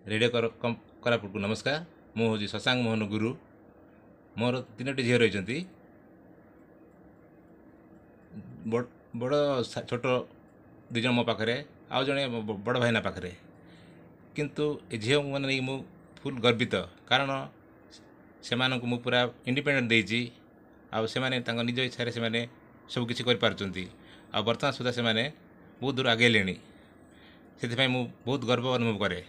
Radio କୋରାପୁଟକୁ ନମସ୍କାର। ମୁଁ ହେଉଛି ଶଶାଙ୍କ ମୋହନ ଗୁରୁ। ମୋର ତିନୋଟି ଝିଅ ରହିଛନ୍ତି। ବଡ଼ ଛୋଟ ଦୁଇ ଜଣ ମୋ ପାଖରେ, ଆଉ ଜଣେ ବଡ଼ ଭାଇନା ପାଖରେ। କିନ୍ତୁ ଏ ଝିଅମାନେ ନେଇକି ମୁଁ ଫୁଲ୍ ଗର୍ବିତ, କାରଣ ସେମାନଙ୍କୁ ମୁଁ ପୁରା ଇଣ୍ଡିପେଣ୍ଡେଣ୍ଟ ଦେଇଛି ଆଉ ସେମାନେ ତାଙ୍କ ନିଜ ଇଚ୍ଛାରେ ସେମାନେ ସବୁକିଛି କରିପାରୁଛନ୍ତି। ଆଉ ବର୍ତ୍ତମାନ ସୁଦ୍ଧା ସେମାନେ ବହୁତ ଦୂର ଆଗେଇଲେଣି। ସେଥିପାଇଁ ମୁଁ ବହୁତ ଗର୍ବ ଅନୁଭବ କରେ।